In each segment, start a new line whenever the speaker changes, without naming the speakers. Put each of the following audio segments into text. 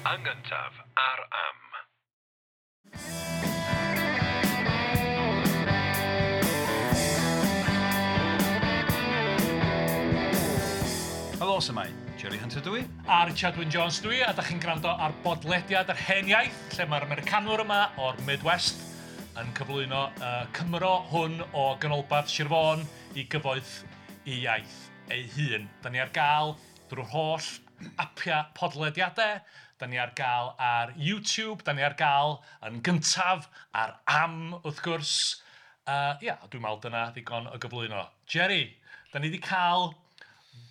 Yn gyntaf ar Am.
Helo, su'mai? Jerry Hunter dwi.
A Richard Wyn Jones dwi, a da chi'n gwrando ar bodlediad yr Hen Iaith, lle mae'r Americanwr yma o'r Midwest yn cyflwyno Cymro hwn o ganolbarth Sir Fôn i gyfoeth i iaith ei hun. Da ni ar gael drwy'r holl apiau podlediadau, da ni ar gael ar YouTube, da ni ar gael yn gyntaf ar Am, wrth gwrs. Ia, dwi'n meddwl dyna ddigon o gyflwyno. Jerry, da ni wedi cael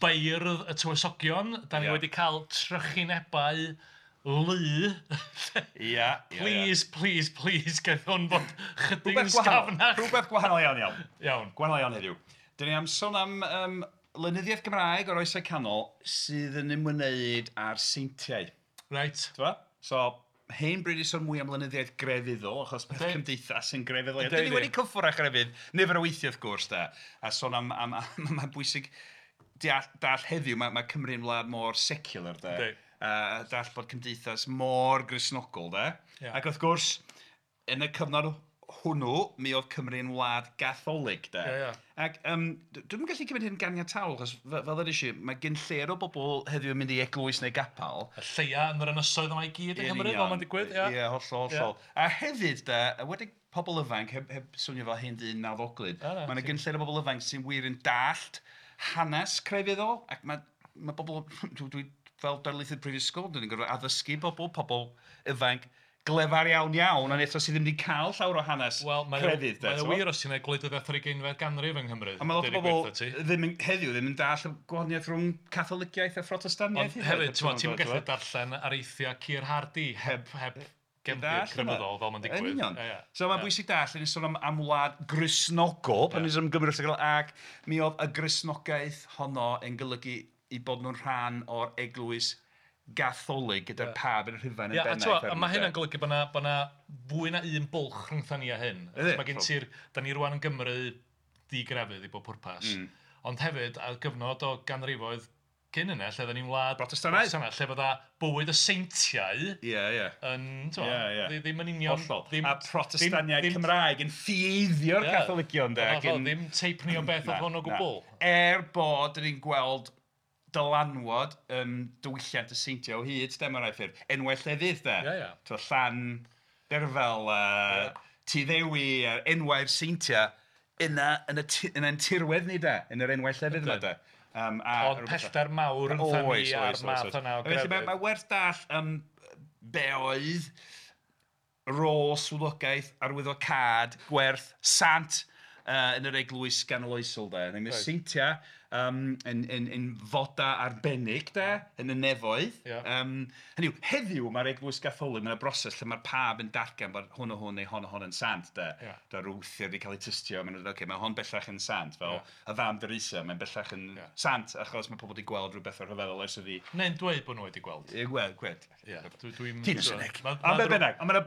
beirdd y tywysogion, da ni wedi cael trychinebau lu.
Ia.
Please, please, please, gaeth hwn fod chydig yn sgafnach.
Rhywbeth gwahanol iawn iawn.
Iawn.
Gwahanol iawn heddiw. Dyn ni am sôn am lenyddiaeth Gymraeg o'r Oesau Canol sydd yn ymwneud â'r seintiau.
Reit.
T'bo? So, hen bryd i sôn mwy am lenyddiaeth grefyddol, achos peth cymdeithas yn grefyddol. Dyn ni wedi cyffwrdd â chrefydd nifer o weithiau wrth gwrs, de. A sôn am mae'n bwysig deall heddiw, mae Cymru'n wlad mor secular, de. A deall bod cymdeithas mor Gristnogol, de. Ac wrth gwrs, yn y cyfnod hwnnw, mi oedd Cymru'n wlad gatholig, de. Ac dwi'm yn gallu cymryd hyn ganiataol, achos fel ddwedes i, mae gen lleir o bobl heddiw yn mynd i eglwys neu gapel.
Y lleia yn yr ynysoedd yma i gyd yng Nghymru, fel mae'n digwydd, ia.
Ie, hollol, hollol. A hefyd, de, wedi pobl ifanc, heb swnio fel hen ddyn nawddoglyd, mae yna gyn lleir o bobl ifanc sy'n wir yn dallt hanes crefyddol, ac mae bobl, dwi fel darlithydd prifysgol, dwi'n gorfod addysgu pobl ifanc glefar iawn iawn, ond eto sydd ddim wedi cael llawer o hanes crefydd.
Wel, mae'n wir os ti'n ei gwleidyddiaeth yr 20fed ganrif yng Nghymru.
A mae lot o bobl ddim heddiw ddim yn dallt y gwahaniaeth rhwng Catholiciaeth a Phrotestaniaeth.
Ond hefyd, ti'n gallu darllen areithiau Keir Hardie heb gefndir crefyddol fel mae'n digwydd.
Yn union. So mae'n bwysig dallt, ni'n sôn am wlad Gristnogol, pan ni'n sôn am Gymru, ac mi oedd y Gristnogaeth honno yn golygu i bod nhw'n rhan o'r eglwys gatholig gyda'r pab yn Rhufain yn bennaeth.
A mae hynna'n golygu bod yna fwy na un bwlch rhyngtha ni a hyn. Mae gen ti'r, da ni rwan yn Gymru digrefydd i bob pwrpas, ond hefyd ar gyfnod o ganrifoedd cyn yna, lle oedden ni'n wlad
Protestannaidd,
lle fydda bywyd y seintiau yn, ddim yn union.
A Protestaniaid Cymraeg yn ffieiddio'r Catholigion.
Ddim teip ni o beth oedd hwn o gwbl.
Er bod ni'n gweld dylanwad diwylliant y seintiau o hyd, de, mewn rhai ffyrdd. Enwau llefydd, de. Llan Derfel, Tŷ Ddewi, enwau'r seintiau, yna yn ein tirwedd ni, de, yn yr enwau llefydd yma, de.
Ond pellter mawr yn ni a'r math yna o grefydd.
Mae werth dall be oedd rôl swyddogaeth, arwyddocâd, gwerth, sant yn yr eglwys ganoloesol, de. Yn y seintiau yn foda arbennig, de, yn y nefoedd. Hynny yw, heddiw mae'r eglwys gatholig, mae'n broses lle mae'r pab yn datgan bod hwn o hwn neu hon o hon yn sant, de. Da rwthiau wedi cael eu tystio, mae'n dweud, okay, mae hon bellach yn sant, fel y fam Teresa, mae'n bellach yn sant, achos mae pobl wedi gweld rhywbeth o'r rhyfeddol ers iddi.
Neu'n dweud bod nhw wedi gweld.
Ie, gweld. Ti'n ysyneg. Ond be bynnag, ond mae'n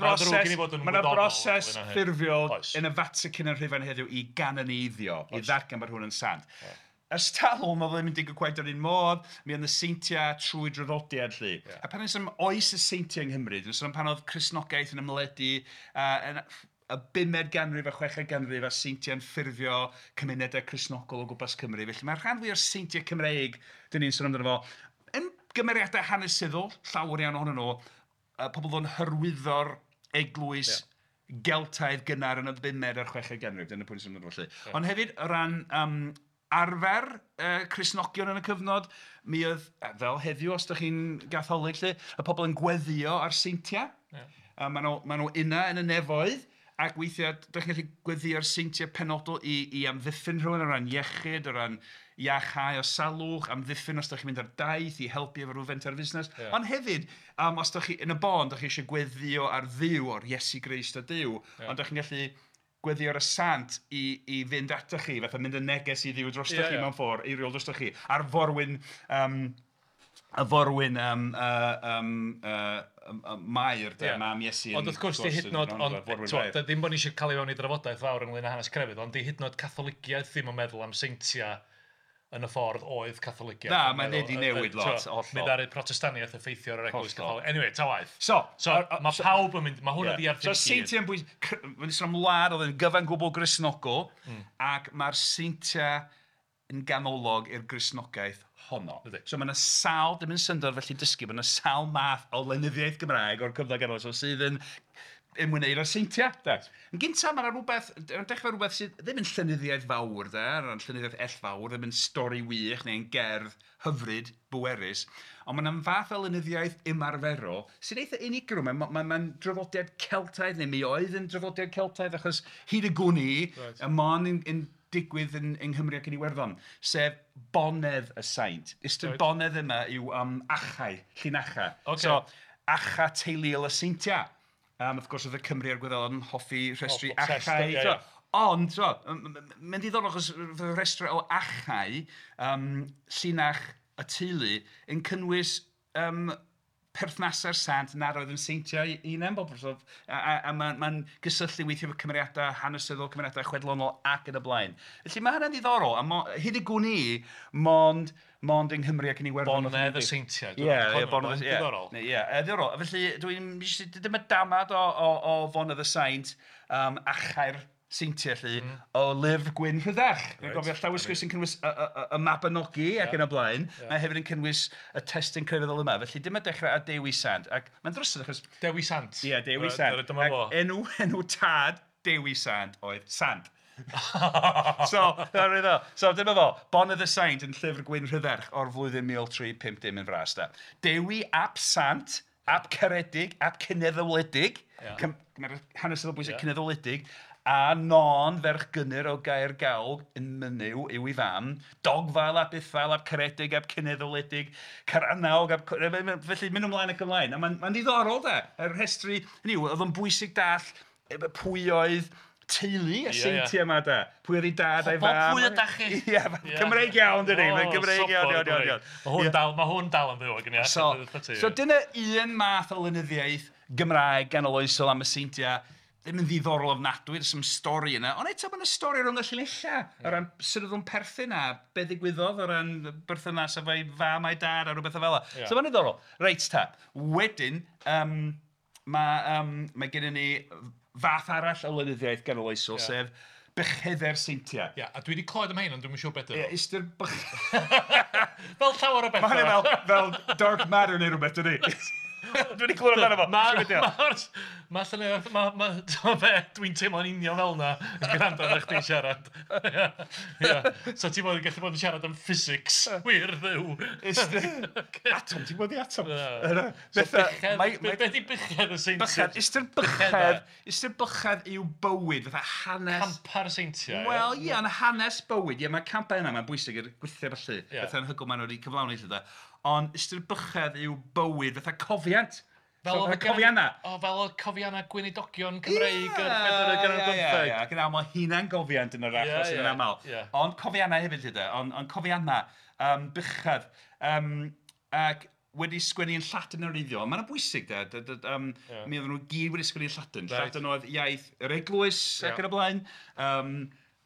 broses ffurfiol yn y Vatican yn Rhufain heddiw i ganoneiddio, i ddatgan bod hwn yn sant. Ers talwm oedd ddim yn digwydd cweit yr un modd, mi oedd y seintiau trwy draddodiad lly. A pan ys am oes y seintiau yng Nghymru, dwi'n sôn am pan oedd Cristnogaeth yn ymledu yn y 5fed ganrif a 6fed ganrif a seintiau'n ffurfio cymunedau Cristnogol o gwmpas Cymru. Felly mae'r rhan fwy o'r seintiau Cymreig, dyn ni'n sôn amdano fo, yn gymeriadau hanesyddol, llawer iawn ohonyn nhw, pobl fo'n hyrwyddo'r eglwys Geltaidd gynnar yn y 5fed a'r 6fed ganrif, dyna pwynt sy'n mynd felly. Ond hefyd, o ran arfer Cristnogion yn y cyfnod, mi oedd, fel heddiw os ydych chi'n gatholig lly, y pobl yn gweddio ar seintiau. Maen nhw yna yn y nefoedd, ac weithiau, ydych chi'n gallu gweddio ar seintiau penodol i amddiffyn rhywun o ran iechyd, o ran iachau o salwch, amddiffyn os ydych chi'n mynd ar daith i helpu efo rhyw fenter fusnes. Ond hefyd, os ydych chi yn y bôn, ydych chi eisiau gweddio ar Dduw, o'r Iesu Grist o Duw, ond ydych chi'n gallu gweddio ar y sant i fynd atoch chi, fatha mynd yn neges i Dduw drostoch chi mewn ffordd, eiriol drostoch chi, a'r forwyn, Mair, de, mam Iesu.
Ond wrth gwrs, di hyd yn oed, ddim bod ni eisiau cael ei fewn i drafodaeth fawr ynglyn â hanes crefydd, ond di hyd yn oed Catholiciaeth ddim yn meddwl am seintiau yn y ffordd oedd Catholigiaeth.
Na, mae'n wedi newid lot, hollol.
Mi ddaru Protestaniaeth effeithio ar yr Eglwys Gatholig. Anyway, ta waeth.
So,
mae pawb yn mynd, mae hwnna di ar
So, seintiau'n bwysig, mae'n sôn am wlad oedd yn gyfan gwbl Gristnogol, ac mae'r seintiau yn ganolog i'r Gristnogaeth honno. So mae yna sawl, dim yn syndod felly dysgu, mae yna sawl math o lenyddiaeth Gymraeg o'r cyfnod ganoloesol sydd yn ymwneud â'r seintiau. De. Yn gyntaf, mae yna rhywbeth, yn dechrau rhywbeth sydd ddim yn llenyddiaeth fawr, de, yn llenyddiaeth ellfawr, ddim yn stori wych neu'n gerdd hyfryd, bwerus, ond mae yna'n fath o lenyddiaeth ymarferol sy'n eitha unigryw. Mae'n draddodiad Celtaidd, neu mi oedd yn draddodiad Celtaidd, achos hyd y gwn i, y mon yn digwydd yng Nghymru ac yn Iwerddon, sef bonedd y saint. Ystyr bonedd yma yw achau, llinachau.
Okay.
So, achau teuluol y seintiau. Wrth gwrs oedd y Cymru a'r Gwyddelod yn hoffi rhestru achau.
Yeah, yeah.
Ond, mae'n ddiddorol achos rhestru o achau, llinach y teulu, yn cynnwys perthnasau'r sant nad oedd yn seintiau eu hunain. A mae'n gysylltu weithio efo cymeriadau hanesyddol, cymeriadau chwedlonol ac yn y blaen. Felly mae hynny'n ddiddorol, a hyd y gwn i, mond yng Nghymru ac yn Iwerddon.
Bonedd y seintiau.
Ie, bonedd y seintiau. Ie, ddiddorol. Felly, dwi'n dyma damad o fonedd y saint, achau'r seintiau, lly, o lyfr Gwyn Rhydderch. Dwi'n gofio llawysgrif sy'n cynnwys y Mabinogi ac yn y blaen. Mae hefyd yn cynnwys y testun crefyddol yma. Felly, dyma dechrau ar Dewi Sant. Ac mae'n drysod achos...
Dewi Sant.
Ie, Dewi Sant.
Dyma fo.
Enw tad Dewi Sant oedd Sant. So, dyma fo, Bonedd y Saint yn llyfr Gwyn Rhydderch o'r flwyddyn 1350 yn fras. Da. Dewi ap Sant, ap Ceredig, ap Cyneddwledig, hanesyddol bwysig Cyneddwledig, a Non ferch Gynnyr o Gaer Gawg yn Mynyw yw ei fam, Dogfael ap Ithfael ap Ceredig ap Cyneddwledig, Caranawg ap... Felly mynd ymlaen ac ymlaen. A mae'n ddiddorol da, yr rhestru, hynny yw, oedd o'n bwysig dall pwy oedd teulu y seintiau yma da. Pwy oedd ei dad a'i fam.
Pwy ydach chi?
Ie, Cymreig iawn dydi. Mae'n Gymreig iawn, iawn.
Mae hwn dal yn fyw ag yn iawn.
So dyna un math o lenyddiaeth Gymraeg ganoloesol am y seintiau. Ddim yn ddiddorol ofnadwy, there's some stori yna. Ond eto mae yna stori rhwng y llinellau. O ran sut oedd nhw'n perthyn a be ddigwyddodd o ran berthynas efo'i fam a'i dad a rhywbeth o fel 'na.
Yeah.
So mae'n ddiddorol. Reit ta. Wedyn, mae gennym ni fath arall o lenyddiaeth ganoloesol, sef Bychedau'r seintiau.
Ie, a dwi wedi clywed am hyn, ond dwi'm yn siŵr beth ydyn
nhw. Ie, ystyr
Fel llawer o bethau.
Mae hynny fel dark matter neu rhywbeth, dydy. Dwi wedi clywed amdano fo.
Mae llenyddiaeth, dwi'n teimlo'n union fel yna yn gwrando ar chdi'n siarad. So ti'n bod yn gallu bod yn siarad am physics, wir ddiw.
Atom, ti'n bod i atom.
Be di bychedd y seintiau?
Ystyr bychedd yw bywyd, fatha hanes.
Campa'r seintiau.
Wel, ie, ond hanes bywyd. Ie, mae campau yna, mae'n bwysig i'r gwythiau felly. Bethau anhygoel maen nhw wedi cyflawni lle da. Ond ystyr bychedd yw bywyd fatha cofiant.
Fel
oedd cofianna.
O, fel oedd cofianna gweinidogion Cymreig yr bedwaredd ganrif ar bymtheg.
Ie, ac yn aml hunan-gofiant yn yr achos yn aml. Ond cofianna hefyd, lle, ond cofianna, bychedd, ac wedi sgwennu yn Lladin yn wreiddiol. Mae'n bwysig, de. Mi oedden nhw gyd wedi sgwennu yn Lladin. Lladin oedd iaith yr eglwys ac yn y blaen.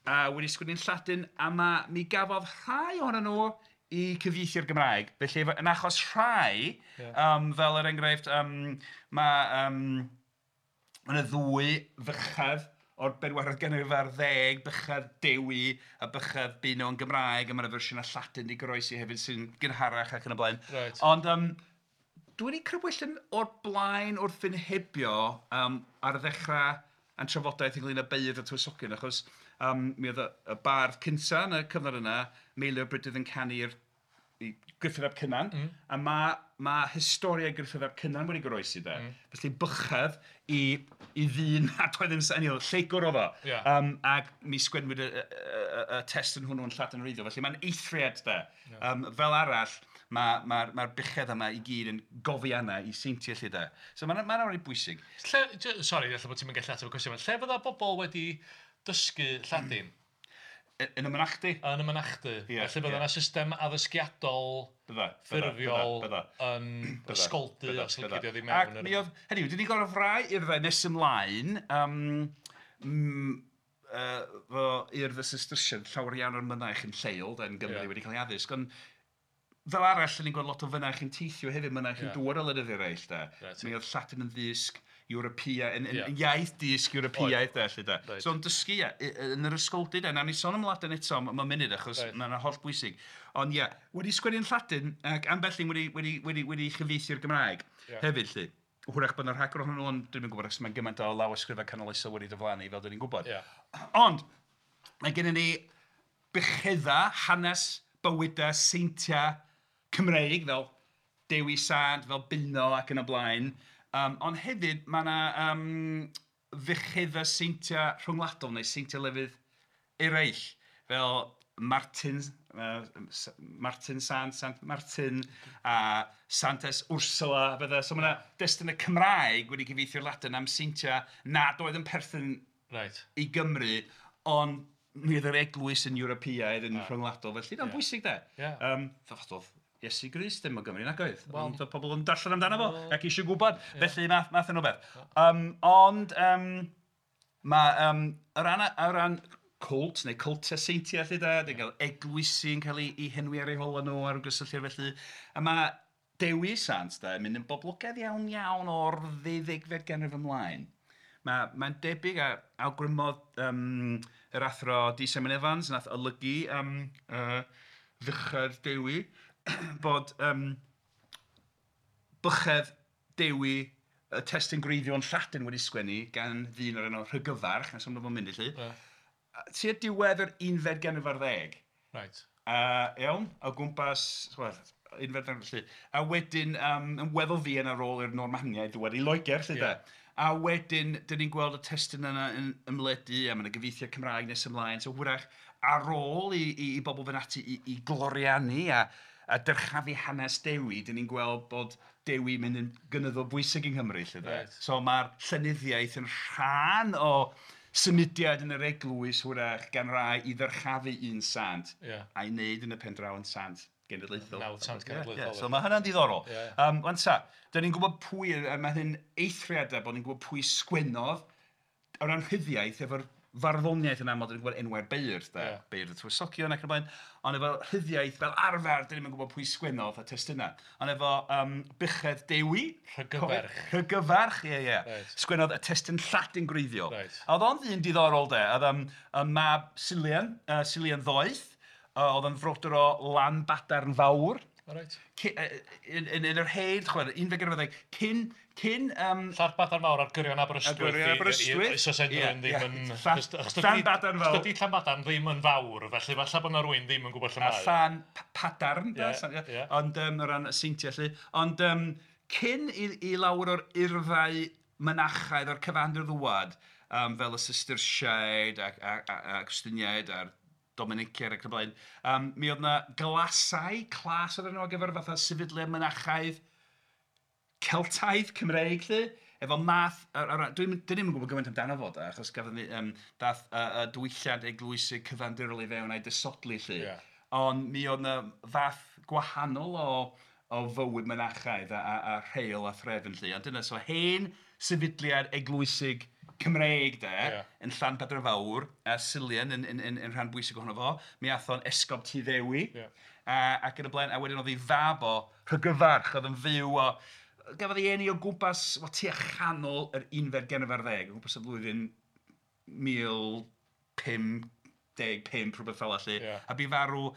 A wedi sgwennu yn Lladin, a mi gafodd rhai ohonyn nhw i cyfieithu'r Gymraeg. Felly, yn achos rhai, fel er enghraifft, mae yna ddwy fychedd o'r bedwaredd ganrif ar ddeg, bychedd Dewi a bychedd Beuno yn Gymraeg, a mae yna fersiynau Lladin di goroesi hefyd sy'n gynharach ac yn y blaen.
Right.
Ond dwi wedi crybwyll yn o'r blaen wrth fy nhebio ar ddechrau a'n trafodaeth ynglyn â beirdd a tywysogion, achos mi oedd y bardd cynta yn y cyfnod yna, Meilir Brydydd yn canu'r Gruffudd ap Cynan, a mae historia Gruffudd ap Cynan wedi goroesi de. Felly bychedd i ddyn nad oedd yn lleygwr oedd o. Ac mi sgwennwyd y testun hwnnw yn Lladin wreiddiol. Felly mae'n eithriad de. Fel arall, mae'r bychedd yma i gyd yn gofiannau i seintiau lle de. So mae'n reit bwysig.
Sori, ella bod ti'n mynd gallu ateb y cwestiwn. Lle fydda bobl wedi dysgu Lladin?
Yn y mynachdy.
Yn y mynachdy. Felly bydda yna system addysgiadol ffurfiol yn ysgoldy os licio di mewn.
Ac mi oedd, hynny yw, dyn ni gorfod rai urddau nes ymlaen, fo urdd y Cistercian, llawer iawn o'r mynaich yn lleol, yn Gymru wedi cael ei addysg, ond fel arall, ni'n gweld lot o fynaich yn teithio hefyd, mynaich yn dŵad o wledydd eraill, de. Right. Mi oedd Lladin yn ddysg Ewropea, yn iaith dysg Ewropeaidd, de, lle, de. Right. So, yn dysgu, yn yr ysgoldy, de. Nawn ni sôn am Ladin eto mewn munud, achos right. Mae'n holl bwysig. Ond ie, wedi sgwennu yn Lladin, ac ambell un wedi chyfieithu'r Gymraeg hefyd, lle. Hwyrach bod yna rhagor ohonyn nhw, ond dwi'm yn gwybod, achos mae'n gymaint o lawysgrifau canoloesol wedi diflannu, fel dyn ni'n gwybod. Ond, mae gennym ni buchedda, hanes, bywydau, seintiau Cymreig, fel Dewi Sant, fel Beuno ac yn y blaen. Ond hefyd, mae yna fuchedda seintiau rhyngwladol neu seintiau lefydd eraill, fel Martin, Martin Sant, Sant Martin, a Santes Ursula, bydde. So mae yna destunau Cymraeg wedi cyfieithu'r Ladin am seintiau nad oedd yn perthyn i Gymru, ond mi oedd yr eglwys yn Ewropeaidd yn rhyngwladol, felly mae'n bwysig de. Oedd Iesu Grist ddim o Gymru nag oedd, ond oedd pobl yn darllen amdano fo ac eisiau gwybod, felly math yn o beth. Ond mae o ran cwlt neu cwltiau seintiau lle da, dwi'n cael eglwysi yn cael ei henwi ar eu hola nhw ar gysylltiad felly, a mae Dewi Sant da yn mynd yn boblogaidd iawn iawn o'r ddeuddegfed ganrif ymlaen. Mae'n debyg a awgrymodd yr athro D. Simon Evans nath olygu Fuchedd Dewi bod Buchedd Dewi, y testun gwreiddiol yn Lladin wedi sgwennu gan ddyn o'r enw Rhygyfarch, nes am mynd i lly. Tua diwedd yr unfed ganrif ar ddeg.
Right.
Iawn, o gwmpas, unfed ganrif felly. A wedyn, yn weddol fuan ar ôl i'r Normaniaid ddŵad i Loegr, lle de. A wedyn, dyn ni'n gweld y testun yna yn ymledu, a mae yna gyfieithiad Cymraeg nes ymlaen. So hwyrach, ar ôl i bobl fynd ati i gloriannu a dyrchafu hanes Dewi, dyn ni'n gweld bod Dewi mynd yn gynyddol bwysig yng Nghymru, lle de.
Right.
So mae'r llenyddiaeth yn rhan o symudiad yn yr eglwys hwyrach gan rai i ddyrchafu un sant a'i wneud yn y pen draw yn sant genedlaethol.
Nawdd sant genedlaethol.
So mae hynna'n diddorol. Wan ta, dyn ni'n gwybod pwy, a mae hyn eithriadau bod ni'n gwybod pwy sgwennodd o ran rhyddiaeth efo'r farddoniaeth yn aml, dyn ni'n gwybod enwau'r beirdd, de, beirdd y tywysogion ac yn y blaen, ond efo rhyddiaeth fel arfer, dyn ni'n gwybod pwy sgwennodd y testunau. Ond efo Buchedd Dewi...
Rhygyfarch.
Rhygyfarch, ie, ie. Sgwennodd y testun Lladin gwreiddiol. A oedd o'n ddyn diddorol, de. Oedd o'n mab Silian, Silian Ddoeth, oedd o'n frodyr o Lanbadarn Fawr.
Right.
Yn yr hen, chwarae, unfed ganrif ar ddeg, cyn
Llanbadarn Fawr ar gyrion Aberystwyth.
Ar gyrion Aberystwyth.
Os oes unrhyw ddim yn...
Llanbadarn Fawr.
Dydy Llanbadarn ddim yn fawr, felly falle bod yna rhywun ddim yn gwybod lle mae.
A Llanpadarn, ond o ran y seintiau lle. Ond cyn i lawer o'r urddau mynachaidd o'r cyfandir ddwad, fel y Cisterciaid a Cwstiniaid a'r Dominiciaid ac yn y blaen, mi oedd yna glasau, clas oedd enw ar gyfer fatha sefydliad mynachaidd Celtaidd, Cymreig lle, efo math, dwi ddim yn gwybod gymaint amdano fo, da, achos gafodd ni, dath diwylliant eglwysig cyfandirol i fewn a'i disodli lle. Ond mi oedd yna fath gwahanol o fywyd mynachaidd a rheol a threfn lle. Ond dyna, so hen sefydliad eglwysig Cymreig de, yn Llanbadarn Fawr, a Silian yn rhan bwysig ohono fo. Mi ath o'n esgob Tŷ Ddewi, ac yn y blaen, a wedyn oedd ei fab o Rhygyfarch, oedd yn fyw o... Gafodd ei eni o gwmpas, tua chanol yr unfed ganrif ar ddeg, o gwmpas y flwyddyn 1055, rhywbeth fel 'na. A bu farw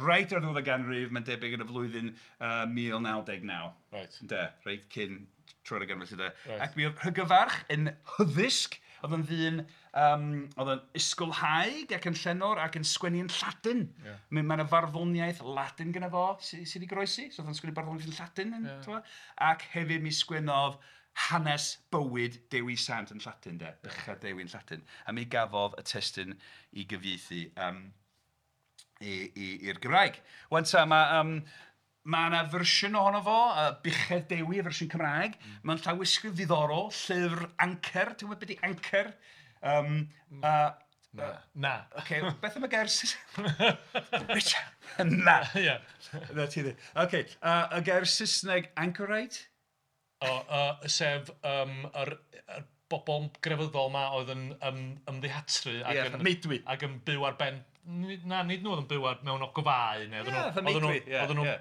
reit ar ddiwedd y ganrif, mae'n debyg yn y flwyddyn 1999.
Right.
De, reit cyn troi'r ganrif felly de. Ac mi oedd Rhygyfarch yn hyddysg, oedd yn ddyn, oedd yn ysgolhaig ac yn llenor ac yn sgwennu yn Lladin. Mae yna farddoniaeth Ladin gyda fo sydd wedi goroesi, so oedd yn sgwennu barddoniaeth yn Lladin. Ac hefyd mi sgwennodd hanes bywyd Dewi Sant yn Lladin, de, Buchedd Dewi yn Lladin. A mi gafodd y testun i gyfieithu i'r Gymraeg. Wan ta, mae yna fersiwn ohono fo, Buchedd Dewi, y fersiwn Cymraeg. Mae'n llawysgrif ddiddorol, llyfr ancer. Ti'n gwybod beth ydi ancer?
Na.
Ocê, beth am y gair Saesneg? Richard! Na! Na ti ddim. Ocê, y gair Saesneg anchorite?
O, sef yr bobl grefyddol 'ma oedd yn ymddihatru ac yn...
Meudwy.
Ac yn byw ar ben... Na, nid nhw oedd yn byw ar, mewn ogofau neu oedden nhw... Fatha meudwy, Oedden nhw'n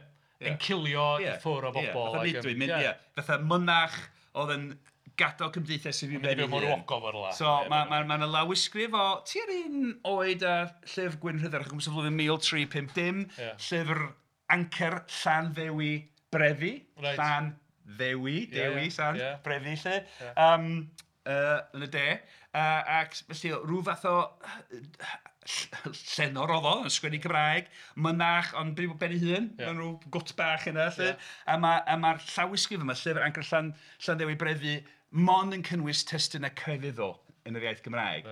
encilio i ffwrdd o bobl.
Fatha meudwy, ie. Fatha mynach oedd yn gadael cymdeithas i fyw ben ei hun.
Mewn ogof ar
So mae 'na lawysgrif o tua'r un oed â Llyfr Gwyn Rhydderch, o gwmpas y flwyddyn 1350, llyfr Ancer Llanddewi Brefi, Llanddewi, Dewi, sant, Brefi 'lly, yn y de. Ac felly rhyw fath o llenor oedd o, yn sgwennu Cymraeg, mynach, ond byw ben ei hun, mewn rhyw gwt bach yna 'lly. A mae'r llawysgrif yma, llyfr Ancer Llanddewi Brefi, mond yn cynnwys testunau crefyddol yn yr iaith Gymraeg.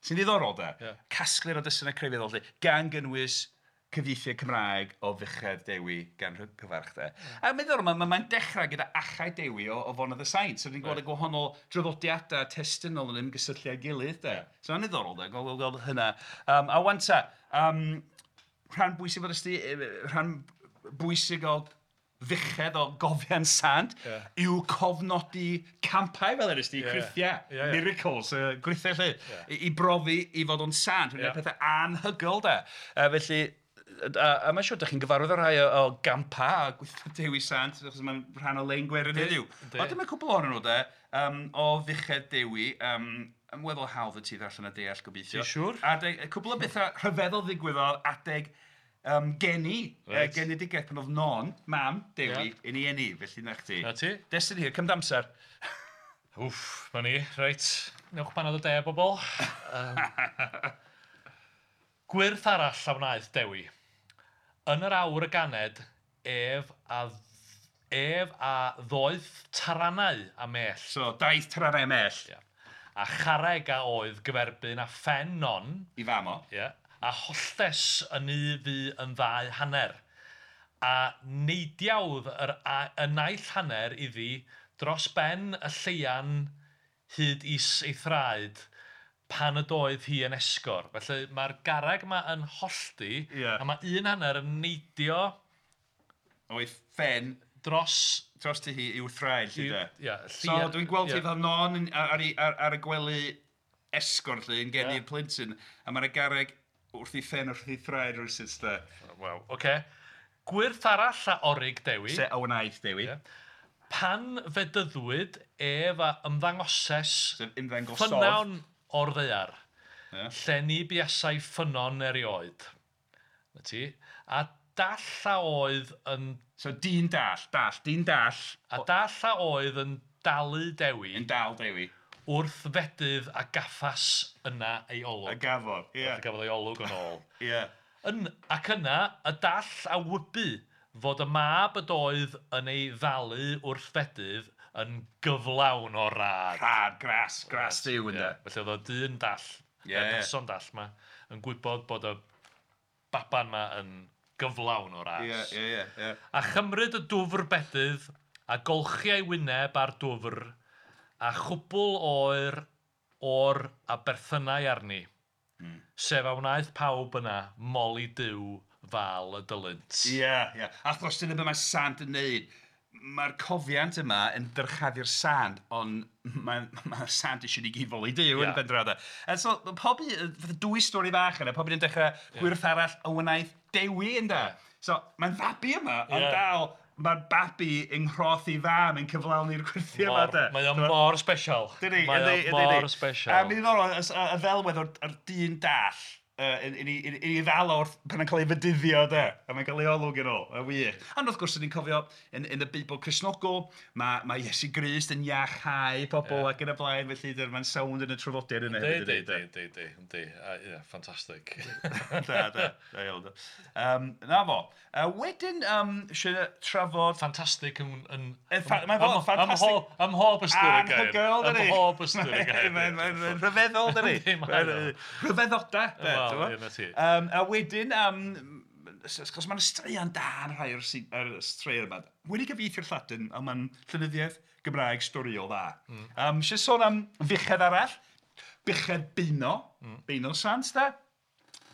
Sy'n ddiddorol de. Casgliad o destunau crefyddol 'lly, gan gynnwys cyfieithiad Cymraeg o Fuchedd Dewi gan Rhygyfarch de. A mae'n ddiddorol, mae'n dechrau gyda Achau Dewi o Fonydd y Saint. So ni'n gweld y gwahanol draddodiadau testunol yn ymgysylltu â'i gilydd de. So mae'n ddiddorol de, gweld hynna. A wan ta, rhan bwysig fel ysdi, rhan bwysig o fuchedd o gofiant sant yw cofnodi campau fel yr ysdi, creithiau, miracles, gwrithiau 'lly, i brofi i fod o'n sant, yeah. Pethau anhygoel de. Felly, a mae'n siŵr, dych chi'n gyfarwydd â rhai o gampau a gweithio Dewi Sant, achos mae'n rhan o lein gwerin heddiw. Ond dyma cwpl ohonyn nhw de, o Fuchedd Dewi, yn weddol hawdd y ti ddarllen a deall gobeithio.
Ti'n siŵr?
Adeg, cwpl o bethau rhyfeddol ddigwyddodd adeg geni, genedigaeth pan oedd Non, mam Dewi, yn ei eni, felly na chdi.
Na ti.
Destun hir, cymryd amser.
Wff, ma ni, reit. Newch banad o de, bobl. Gwyrth arall a wnaeth Dewi. Yn yr awr y ganed, ef a ddoeth taranau a mell.
So, daeth taranau a mell.
Yeah. A charreg a oedd gyferbyn a phen Non.
I fam o.
Yeah. A holltes yn u fu yn ddau hanner. A neidiawdd y naill hanner iddi dros ben y lleian hyd is ei thraed pan ydoedd hi yn esgor. Felly mae'r garreg yma yn hollti, a mae un hanner yn neidio...
O'i phen... Dros ti hi i'w thraed, lly de.
Yeah,
so dwi'n gweld hi fel Non ar y gwely esgor, lly, yn geni'r plentyn, a mae'r garreg wrth ei phen, wrth ei thraed rywsut, de.
Waw, oce. Gwyrth arall a orig Dewi.
Se a wnaeth Dewi.
Yeah. Pan fedyddwyd ef a ymddangoses ffynnon o'r ddaear, lle ni buasai ffynnon erioed. Na ti. A dall a oedd yn...
So dyn dall, dall, dyn dall.
A dall a oedd yn dalu Dewi.
Yn dal Dewi.
Wrth fedydd a gaffas yna ei olwg.
A gafodd, ie.
A gafodd ei olwg yn ôl.
Ie.
Ac yna, y dall a wybu fod y mab ydoedd yn ei ddalu wrth fedydd yn gyflawn o rad.
Rhad, gras, gras Duw ynde.
Felly oedd o dyn dall, y person dall ma, yn gwybod bod y baban ma yn gyflawn o ras.
Ie, ie, ie.
A chymryd y dwfr bedydd, a golchi ei wyneb ar dwfr, a chwbl oer o'r a berthynau arni. Sef a wnaeth pawb yna moli Duw fel y dylynt.
Ie, ie. Achos dyna be mae sant yn neud. Mae'r cofiant yma yn dyrchafu'r sant, ond mae'r sant eisiau ni gyd foli Duw yn y pen draw de. A so, pob un, fatha dwy stori fach yna, pob un yn dechrau gwyrth arall a wnaeth Dewi ynde. So, mae'n fabi yma, ond dal, mae'r babi yng nghroth ei fam yn cyflawni'r gwyrthiau yma de.
Mae o mor special. Mae o mor special.
A mae'n ddiddorol, y ddelwedd o'r dyn dall, yn ei ddal wrth pan yn cael ei fedyddio de, a mae'n cael ei olwg yn ôl, yn wych. Ond wrth gwrs, ni'n cofio yn y Beibl Cristnogol, mae Iesu Grist yn iachau pobl ac yn y blaen, felly mae'n sownd yn y traddodiad yna hefyd.
Yndi, yndi, ie, ffantastig.
Da, da, da iawn. Na fo. Wedyn, eisiau trafod...
Ffantastig yn...
Mae'n fod, ffantastig.
Ym mhob ystyr y gair.
Anhygoel, dydi?
Ym mhob ystyr y gair.
Mae'n rhyfeddol, dydi? Rhyfeddoda. A wedyn, achos mae'n straeon da yn rhai o'r straeon yma. Wedi cyfieithu'r Lladin, ond mae'n llenyddiaeth Gymraeg storiol dda. Eisiau sôn am fuchedd arall, Buchedd Beuno, Beuno Sant da.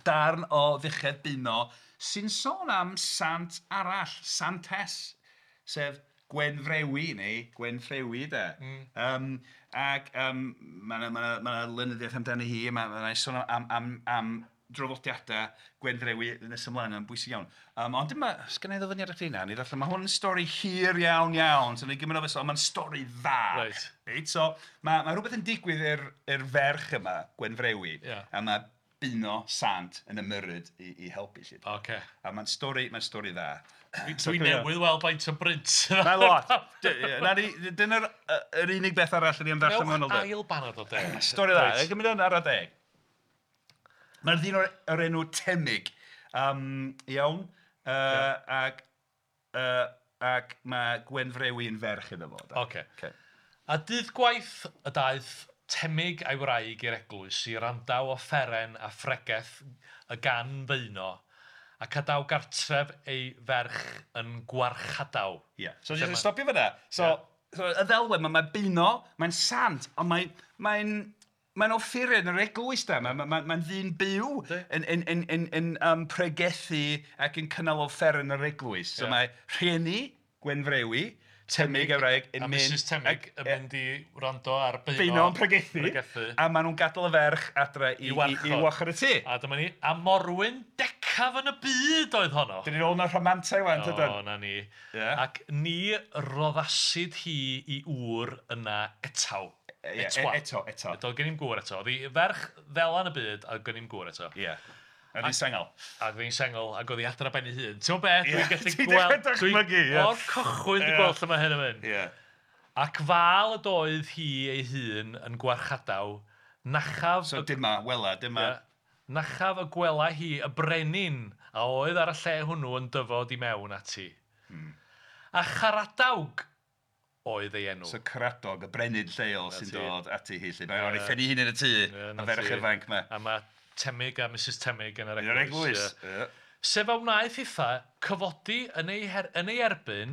Darn o Fuchedd Beuno sy'n sôn am sant arall, santes, sef Gwenfrewi neu Gwenffrewi de. Ac mae 'na lenyddiaeth amdani hi, mae 'na sôn am draddodiadau Gwenfrewi nes ymlaen, mae'n bwysig iawn. Ond dyma, sgynna i ddyfyniad i chdi 'na, wna i ddarllen, mae hwn yn stori hir iawn iawn, so wna i gymryd o ond mae'n stori dda. Reit, so mae rhywbeth yn digwydd i'r ferch yma, Gwenfrewi, a mae Beuno Sant yn ymyrryd i helpu 'lly. A mae'n stori, mae'n stori dda.
Dwi newydd weld faint o brint.
Mae'n lot. Dyna'r yr unig beth arall ni am ddarllen mewn
Newch ail banad o de.
Stori dda. Gymryd yn ara deg. Mae'r ddyn o'r enw Temig. Iawn. Ac mae Gwenfrewi yn ferch iddo fo.
Ocê. A dydd gwaith y daeth Temig a'i wraig i'r eglwys i wrandaw offeren a phregeth y gan Feuno, ac adaw gartref ei ferch yn gwarchadaw.
Ie, so jyst stopio fan'na. So, so y ddelwedd, mae Beuno, mae'n sant, ond mae'n mae'n offeren yr eglwys da, mae'n ddyn byw yn pregethu ac yn cynnal offeren yr eglwys. So mae rhieni Gwenfrewi, Temig a'i wraig yn
mynd... A Mrs Temig yn mynd i wrando ar Beuno.
Beuno yn pregethu. A maen nhw'n gadael y ferch adre i warchod y tŷ.
A dyma ni, a morwyn decaf yn y byd oedd honno.
Dyn ni'n ôl yn y rhamantau wan, tydan?
O, na ni. Ac ni roddasid hi i ŵr yna etaw.
Eto.
Eto, gen i'm gŵr eto. Oedd hi ferch ddela yn y byd, a gen i'm gŵr eto.
Ie. A oedd hi'n sengl.
A oedd hi'n sengl, ac oedd hi adra ben ei hun. Ti'n gwybod beth? Dwi'n gallu gweld...
Dychmygu, ie.
O'r cychwyn dwi'n gweld lle mae hyn yn mynd.
Ie.
Ac fal ydoedd hi ei hun yn gwarchadaw, nachaf...
So dyma, wela, dyma...
Nachaf y gwela hi y brenin a oedd ar y lle hwnnw yn dyfod i mewn ati. A Charadawg oedd ei enw.
So Caradog, y brenin lleol sy'n dod ati hi. Mae o'n ei phen ei hun yn y tŷ, y ferch ifanc 'ma.
A mae Temig a Mrs Temig yn yr
eglwys. Yn yr eglwys, ie.
Sef a wnaeth hitha cyfodi yn ei erbyn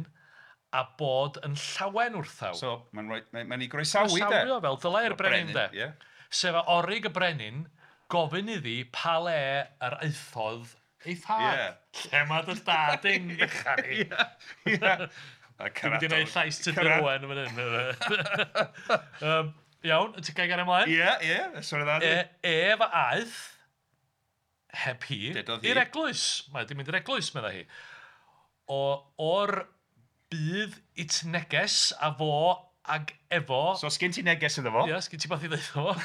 a bod yn llawen wrthaw.
So mae'n ei groesawu de.
Groesawu o fel dylai'r brenin de. Sef a orig y brenin gofyn iddi pa le yr aethodd ei thad. Lle mae dy dad yn fechan i?
Ie.
Dwi'n mynd i wneud llais Tudur Owen yn fan hyn. Iawn, ti'n gael gair ymlaen?
Ie, ie, sori dda.
Ef a aeth, heb hi, i'r eglwys. Mae di mynd i'r eglwys, meddai hi. O'r bydd it neges a fo ag efo...
So, sgyn ti neges iddo fo?
Ie, sgyn ti beth i ddeud fo.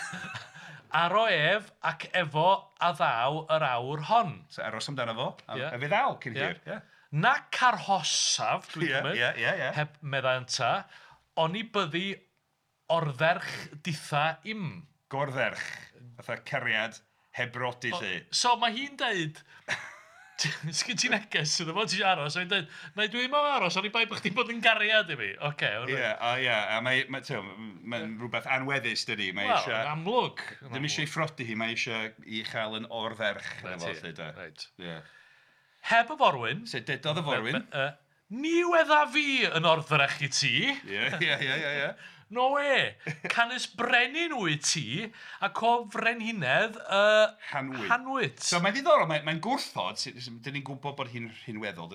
Aro ef ac efo a ddaw yr awr hon.
So, aros amdano fo, a fe ddaw cyn hir.
Nac arhosaf, dwi'n cymryd, heb meddai ynta, oni byddi ordderch ditha im.
Gordderch, fatha cariad heb brodi 'lly.
So mae hi'n deud, sgyn ti neges iddo fo, ti eisiau aros, a hi'n deud, na dwi ddim am aros, oni bai bod chdi'n bod yn gariad i fi. Ocê.
Ie, a mae'n rhywbeth anweddus, dydi.
Wel, yn amlwg.
Ddim eisiau ei phrodi hi, mae eisiau ei chael yn ordderch.
Reit. Heb y forwyn.
So dedodd y forwyn.
Ni wedda fi yn ordderch i ti.
Ie, ie, ie, ie.
No we, canys brenin wyt ti ac o frenhinedd Hanwyd.
So mae'n ddiddorol, mae'n gwrthod, dyn ni'n gwybod bod hi'n rhinweddol,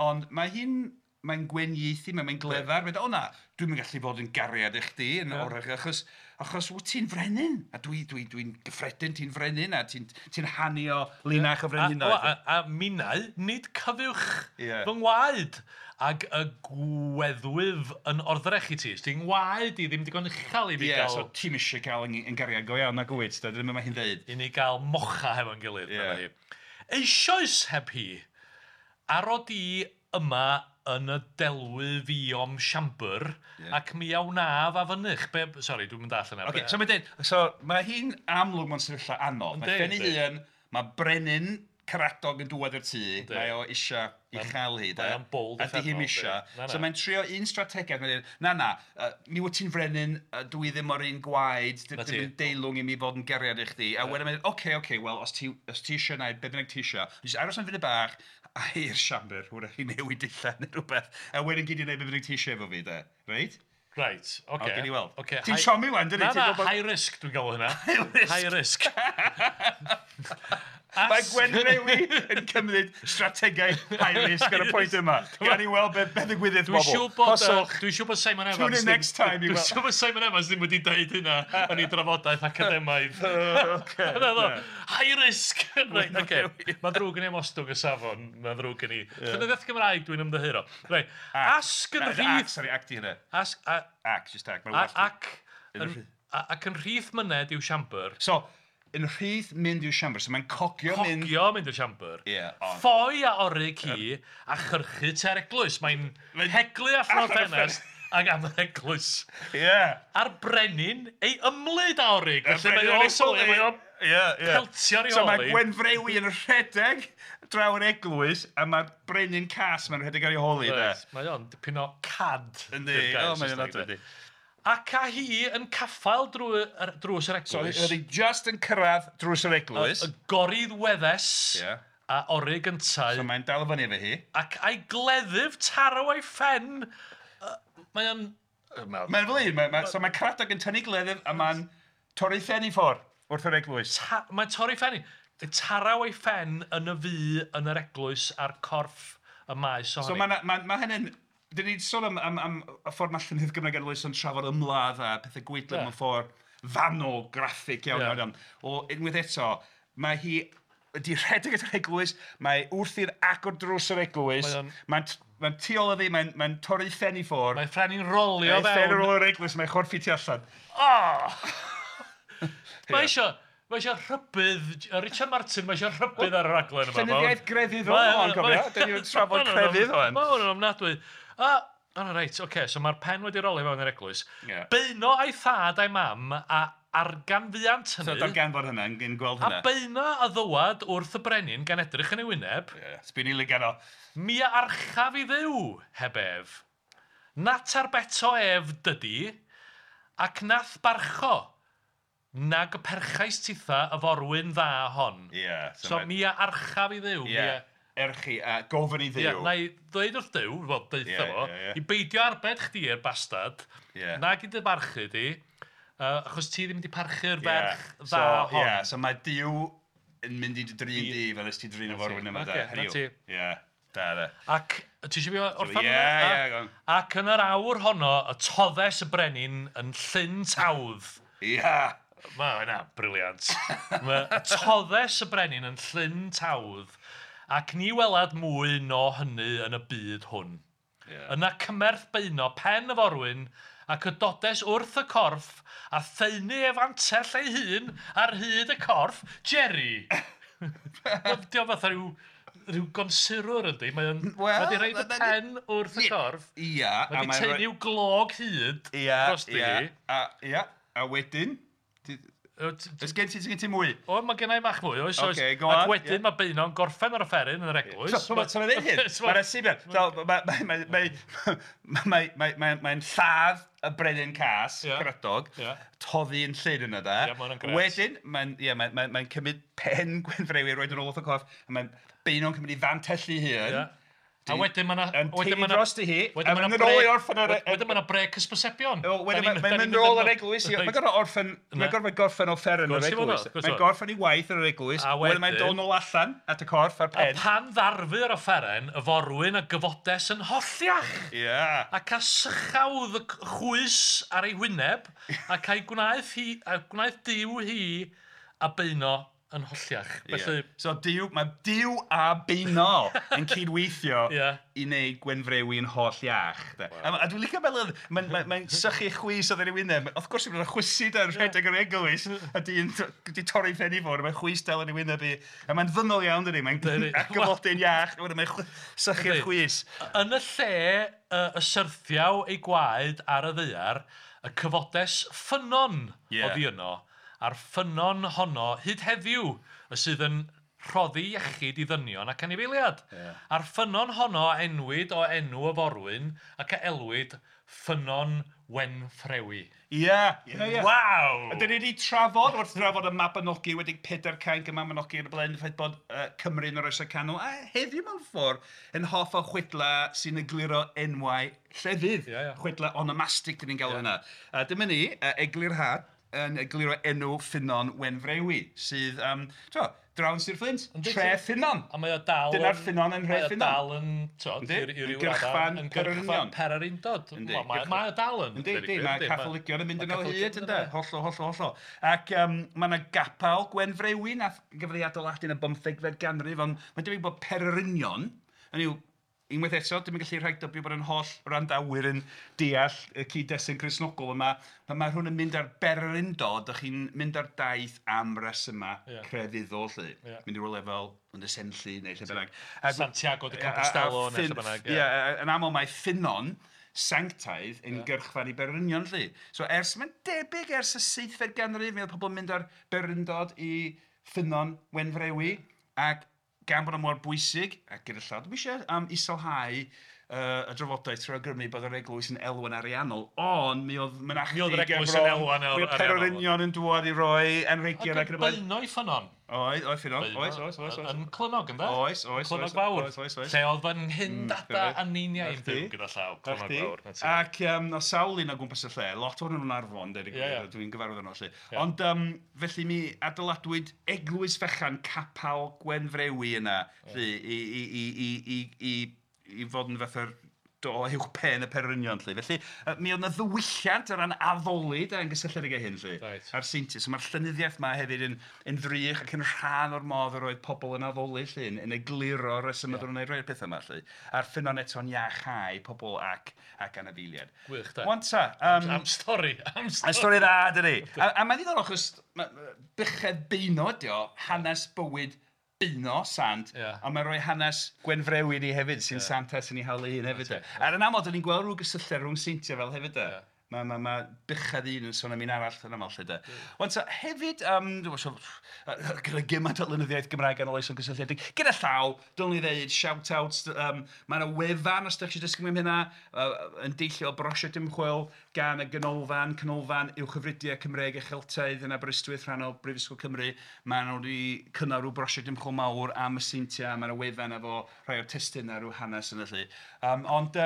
ond mae hi'n, mae'n gwenieithu, mae'n glefar, mae'n dweud, o na, dwi'm yn gallu bod yn gariad i chdi, yn orach, achos wyt ti'n frenin, a dwi'n gyffredin, ti'n frenin, a ti'n hanu o linach o frenhinoedd.
A minnau, nid cyfuwch fy ngwaed, ag y gweddwyf yn ordderch i ti. Ti'n ngwaed i ddim digon uchel i fi gael...
Ie, so ti'm eisiau cael yn gariad go iawn, nag wyt, dyna mae hi'n dweud.
I ni gael mocha hefo'n gilydd. Eisoes heb hi, aro di yma yn y delwy fiom siambr, ac mi a wnaf a fynych. Sori, dwi'n mynd all yna.
Okay, so mae'n dweud, so mae hi'n amlwg mewn sefyllfa anodd. Mae phen ei hun, mae brenin Caradog yn dŵad i'r tŷ, mae o eisiau i chael hi,
Mae o'n bold
a di hi'm eisiau. So mae'n trio un strategaeth, mae'n dweud, na na, mi wyt ti'n frenin, dwi ddim o'r un gwaed, ddim yn deilwng i mi fod yn gariad i chdi. A wedyn mae'n dweud, oce, wel, os ti eisiau gwneud, be bynnag ti eisiau, jyst aros am funud bach, a i'r siambr, hwyrach i newid dillad neu rhywbeth, a wedyn gyd i wneud be bynnag ti eisiau efo fi, de, reit?
Right, oce.
Gewn ni weld. Ti'n siomi wan, dydi?
Na, na, high risk dwi'n galw hynna. High risk. High risk.
Mae Gwenfrewi yn cymryd strategaeth high risk ar y pwynt yma. Gawn ni weld be ddigwyddith bobl.
Dwi'n siŵr bod Simon Evans...
Tune in next time.
Dwi'n siŵr bod Simon Evans ddim wedi deud hynna yn ei drafodaeth academaidd. High risk! Right, okay. Mae'n ddrwg gen i am ostwng y safon. Mae'n ddrwg gen i. Llenyddiaeth Gymraeg dwi'n ymddiheuro. Right. Asg yn rhith...
Sorry, ac di hynna.
Asg...
Ac, just ac.
Ac yn rhith myned i'w siambr.
So, yn rhith mynd i'w siambr, so mae'n cogio mynd...
Cogio mynd i'r siambr.
Yeah,
Ffoi a orig hi a chyrchu tua'r eglwys. Mae'n heglu allan o'r ffenest ac am yr eglwys.
Yeah.
A'r brenin ei ymlid a orig. Felly mae o'n sylwi, mae o'n peltio'r i
So mae Gwenfrewi yn rhedeg draw yr eglwys a mae'r brenin cas mae'n rhedeg ar ei holi.
Mae o'n dipyn o cad.
Yndi, o mae'n adwy.
Ac a hi yn caffael drws yr eglwys.
So oedd hi just yn cyrraedd drws yr eglwys.
Y gorydd weddes a orig yntau.
So mae'n dal fyny efo hi.
Ac a'i gleddyf taraw ei phen. Mae o'n...
Mae'n fel un. So mae Caradog yn tynnu gleddyf a mae'n torri phen i ffwrdd wrth yr eglwys.
Mae'n torri phen i. Taraw ei phen yn y fu yn yr eglwys a'r corff y maes ohoni.
So mae hynny'n... Dyn ni'n sôn am y ffordd mae llenyddiaeth Gymraeg Ganoloesol yn trafod ymladd a pethau gwaedlyd mewn ffordd fanwl, graffig iawn, iawn, iawn. O, unwaith eto, mae hi wedi rhedeg at yr eglwys, mae wrth i'r agor drws yr eglwys, mae'n tu ôl iddi, mae'n torri phen i ffwrdd.
Mae phen i'n rolio fewn.
Mae'n phen yn yr eglwys, mae'n chorffi tu allan.
Oh! Mae eisiau... Mae eisiau rhybudd, Richard Martin, mae eisiau rhybudd ar y raglen yma.
Llenyddiaeth grefydd o'n cofio, dyn ni'n trafod crefydd o'n.
Mae hwn yn ofnadwy. Reit, oce, so mae'r pen wedi rolio fewn i'r eglwys. Beuno a'i thad a'i mam a arganfuant hynny.
So darganfod hynna, yn gweld hynna.
A beuno a ddywad wrth y brenin gan edrych yn ei wyneb.
Sbyn i lygan o.
Mi a archaf i Dduw, heb ef. Nat arbeto ef dydi, ac nath barcho. Nag y perchais titha y forwyn dda hon.
Yeah,
so mi a archaf i Dduw.
Yeah. Erchi a gofyn i Dduw.
Yeah, na i ddweud wrth Duw, wel, deutha fo, i beidio arbed chdi i'r bastard, nag i dy barchu di, achos ti ddim wedi parchu'r ferch dda hon.
Yeah, so mae Duw yn mynd i dy drin di fel ys ti drin y forwyn yma.
Na ti.
Yeah, da, da.
Ac, ti eisiau fi orffen
hwnna? Ie, ie.
Ac yn yr awr honno, y toddes y brenin yn llyn tawdd.
Ie.
Mae hynna, briliant. Mae toddes y brenin yn llyn tawdd ac ni welad mwy no hynny yn y byd hwn.
Yeah.
Yna cymerth beuno pen y forwyn ac y dodes wrth y corff a thaenu ef antell ei hun ar hyd y corff, Jerry. Dio fatha rhyw gonsurwr yndi, mae'n wedi rhaid y pen wrth y corff.
Ia.
Mae wedi taenu'w glog hyd dros di.
Ia, a wedyn... Ys gen ti mwy?
O, mae gen i bach mwy, oes, oes.
Okay, go on.
Ac wedyn mae Beuno'n gorffen ar y offeryn yn yr eglwys.
So, mae'n dweud hyn, mae'n asibiad. Mae'n lladd y brenin cas, Caradog, toddi yn llyn yna da. Wedyn, mae'n cymryd pen Gwenfrewi, roed yn ôl wrth y corff, a mae'n Beuno'n cymryd i fantellu hun.
A wedyn mae 'na...
Yn teulu drosti hi, a mae'n mynd ôl i orffen ar...
Wedyn mae 'na brêc hysbysebion.
Wedyn mae'n mynd ôl yr eglwys. Mae'n gorfod orffen... Mae'n gorfod gorffen offeren yr eglwys. Mae'n gorffen ei waith yn yr eglwys. Wedyn mae'n dod nôl allan at y corff a'r pen.
A pan ddarfu yr offeren, y forwyn a gyfodes yn holliach.
Ie.
Ac a sychawdd y chwys ar ei wyneb, ac a'i gwnaeth hi, a gwnaeth Duw hi a Beuno yn holliach. Felly...
So Duw, mae Duw a Beuno yn cydweithio i wneud Gwenfrewi yn holl iach. Wow. A dwi'n licio fel mae'n sychu chwys oedd yn ei wyneb. Wrth gwrs, mae'n chwysu da'n rhedeg yr eglwys a dyn di torri ffen i fod, mae'n chwys dal yn ei wyneb i. A mae'n ddynol iawn, dydy. Mae'n agyfodyn iach, mae'n sychu'r chwys.
Yn y lle y syrthiaw ei gwaed ar y ddaear, y cyfodes ffynnon oddi yno, a'r ffynnon honno hyd heddiw y sydd yn rhoddi iechyd i ddynion ac anifeiliad.
Yeah.
A'r ffynnon honno a enwyd o enw y forwyn ac a elwyd Ffynnon Wenffrewi.
Ie, ie, ie.
Waw!
A dyn ni wedi trafod, wrth drafod y Mabinogi wedi Pedair Cainc y Mabinogi yn y blaen, y ffaith bod Cymru yn yr Oesau Canol, a heddiw mewn ffordd yn hoff o chwedla sy'n egluro enwau llefydd.
Yeah, yeah.
Chwedla onomastig, dyn ni'n galw hynna. A dyma ni, eglurhad. yn egluro enw Ffynnon Wenfrewi, sydd, draw yn Sir Fflint, tre Ffynnon.
A mae o dal...
Dyna'r ffynnon yn nhre
Ffynnon. Mae o dal yn,
i ryw raddau, yn gyrchfan
pererindod. Mae o dal yn.
Yndi, mae Catholigion yn mynd yn ôl hyd, ynde? Hollol, hollol, hollol. Ac mae yna gapel Gwenfrewi, nath gafodd ei adeiladu yn y 15fed ganrif, ond mae'n debyg bod pererinion, hynny yw, unwaith eto, dim yn gallu rhagdybio bod yn holl wrandawyr yn deall y cyd-destun Cristnogol yma. Pan mae rhywun yn mynd ar bererindod, dych chi'n mynd ar daith am resymau crefyddol, 'lly. Mynd i rywle fel Ynys Enlli neu lle bynnag.
Santiago de Compostela neu lle bynnag.
Ie, yn aml mae ffynnon sanctaidd yn gyrchfan i bererinion, 'lly. So ers, mae'n debyg ers y 7fed ganrif, mi oedd pobl yn mynd ar bererindod i Ffynnon Wenfrewi, ac gan bod o mor bwysig, ac gyda llaw, dwi'm eisiau iselhau y drafodaeth trwy awgrymu bod yr eglwys yn elwa'n ariannol, ond mi oedd mynachdy
Mi oedd yr eglwys yn elwa'n
ariannol. Mi oedd pererinion yn dŵad i roi anrhegion
ac yn y blaen. Beuno i ffynnon.
Oedd, oedd ffynnon, oes, oes, oes.
Yn Clynnog, ynde?
Oes, oes.
Clynnog Fawr. Oes, oes, oes. Lle oedd fy nghyn-dada a neiniau yn byw gyda llaw, Clynnog Fawr.
Ac o sawl un o gwmpas y lle, lot ohonyn nhw'n Arfon, deud y gwir, dwi'n gyfarwydd yno 'lly. Ond felly mi adeiladwyd eglwys fechan Capel Gwenfrewi yna, 'lly, i fod yn fatha'r do uwch pen y pererinion, 'lly. Felly, mi oedd 'na ddiwylliant o ran addoli de, yn gysylltiedig â hyn, 'lly. A'r seintiau. So mae'r llenyddiaeth 'ma hefyd yn ddrych ac yn rhan o'r modd yr oedd pobl yn addoli, 'lly, yn egluro'r rhesymau oedden nhw'n gwneud rhai o'r pethau yma, 'lly. A'r ffynnon eto'n iachau pobl ac anifeiliaid.
Gwych, de.
Wan ta.
Am stori, am stori.
Am stori dda, dydi. A mae'n ddiddorol, achos buchedd Beuno ydi o, hanes bywyd Beuno, sant, ond mae'n rhoi hanes Gwenfrewi ni hefyd, sy'n santes yn ei hawl ei hun hefyd. Ar yn aml, dyn ni'n gweld rhyw gysylltiad rhwng seintiau fel hefyd. Mae buchedd un yn sôn am un arall yn aml, 'lly de. Wan ta, hefyd, gyda gymaint o lenyddiaeth Gymraeg ganoloesol gysylltiedig, gyda llaw, dylwn i ddeud, shout-outs, mae yna wefan, os ydych chi eisiau dysgu mwy am hynna, yn deillio o brosiect ymchwil gan y Ganolfan, Canolfan Uwchgyfrydiau Cymreig a Cheltaidd yn Aberystwyth, rhan o Brifysgol Cymru. Maen nhw wedi cynnal rhyw brosiect ymchwil mawr am y seintiau, mae yna wefan efo rhai o'r testunau, rhyw hanes yna, 'lly. Ond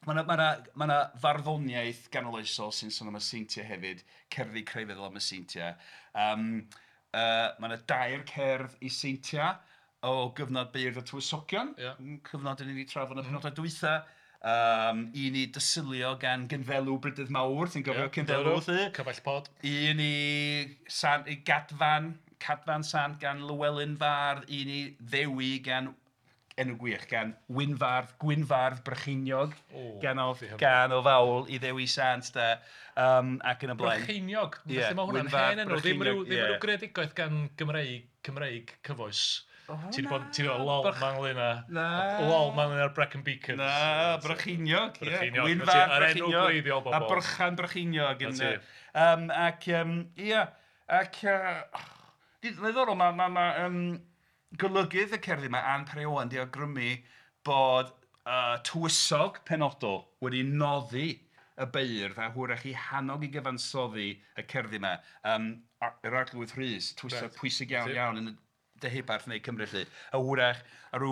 mae 'na farddoniaeth ganoloesol sy'n sôn am y seintiau hefyd, cerddi crefyddol am y seintiau. Mae 'na dair cerdd i seintiau o gyfnod Beirdd y Tywysogion, cyfnod dan ni wedi trafod yn y penodau dwytha. Un i Dysilio gan Gynddelw Brydydd Mawr, ti'n cofio Cynddelw, 'lly?
Cyfaill pod.
Un i Gadfan, Cadfan Sant gan Lywelyn Fardd, un i Ddewi gan, enw gwych, gan Wynfardd, Gwynfardd Brycheiniog, gan o fawl i Ddewi Sant, de, ac yn y blaen.
Brycheiniog, felly mae hwnna'n hen enw, ddim rhyw greadigaeth gan Gymreig cyfoes. Ti 'di bod, ti 'di bod lol ma'n ynglyn â...
Na.
Lol ma'n ynglyn â'r Brecon Beacons.
Na, Brycheiniog, ie. Wynfardd Brycheiniog. A Brychan Brycheiniog. Ac, ia, ac... Ddiddorol, mae golygydd y cerddi yma, Ann Parry Owen, 'di awgrymu bod tywysog penodol wedi noddi y beirdd a hwyrach eu hannog i gyfansoddi y cerddi yma. Yr Arglwydd Rhys, tywysog pwysig iawn iawn yn y Deheubarth neu Cymru, 'lly. A hwyrach ar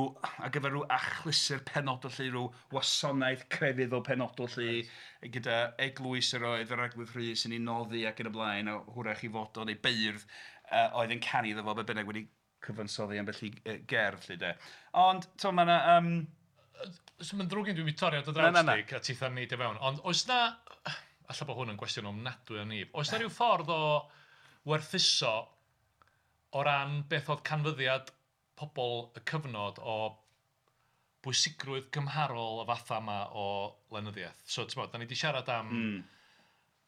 gyfer rhyw achlysur penodol, 'lly, rhyw wasanaeth crefyddol penodol, 'lly, gyda eglwys yr oedd yr Arglwydd Rhys yn ei noddi ac yn y blaen, a hwyrach ei fod o neu beirdd oedd yn canu iddo fo, be bynnag wedi cyfansoddi ambell i gerdd, 'lly, de. Ond, to, mae yna...
So mae'n ddrwg gen i, dwi'n mynd torri ar dy draws di, a titha'n neidio fewn, ond oes na... Alla bod hwn yn gwestiwn ofnadwy o nib. Oes na rhyw ffordd o werthuso o ran beth oedd canfyddiad pobl y cyfnod o bwysigrwydd cymharol y fatha yma o lenyddiaeth? So, ti'n bod, da ni wedi siarad am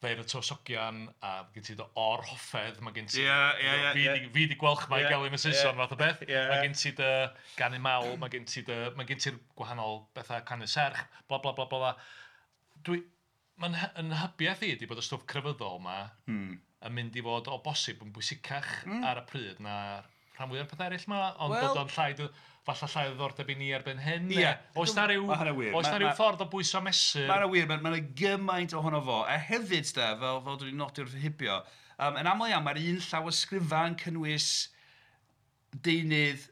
Feirdd y Tywysogion, a gen ti dy or-hoffedd, mae gen ti... Fi 'di Gwalchmai gelyn y Saeson fath o beth. Mae gen ti dy ganu mawl, mae gen ti dy... Mae gen ti'r gwahanol bethau canu serch, bla bla bla bla. Dwi... Mae'n yn nhybiaeth i ydi bod y stwff crefyddol 'ma yn mynd i fod o bosib yn bwysicach ar y pryd na'r rhan fwyaf o'r pethau eraill 'ma, ond bod o'n llai, falle llai o ddiddordeb i ni erbyn hyn.
Ie.
Oes 'na ryw, oes 'na ryw ffordd o bwyso mesur?
Mae 'na wir, mae 'na gymaint ohono fo. A hefyd, de, fel dwi wedi nodi wrth hibio, yn aml iawn mae'r un llawysgrifau yn cynnwys deunydd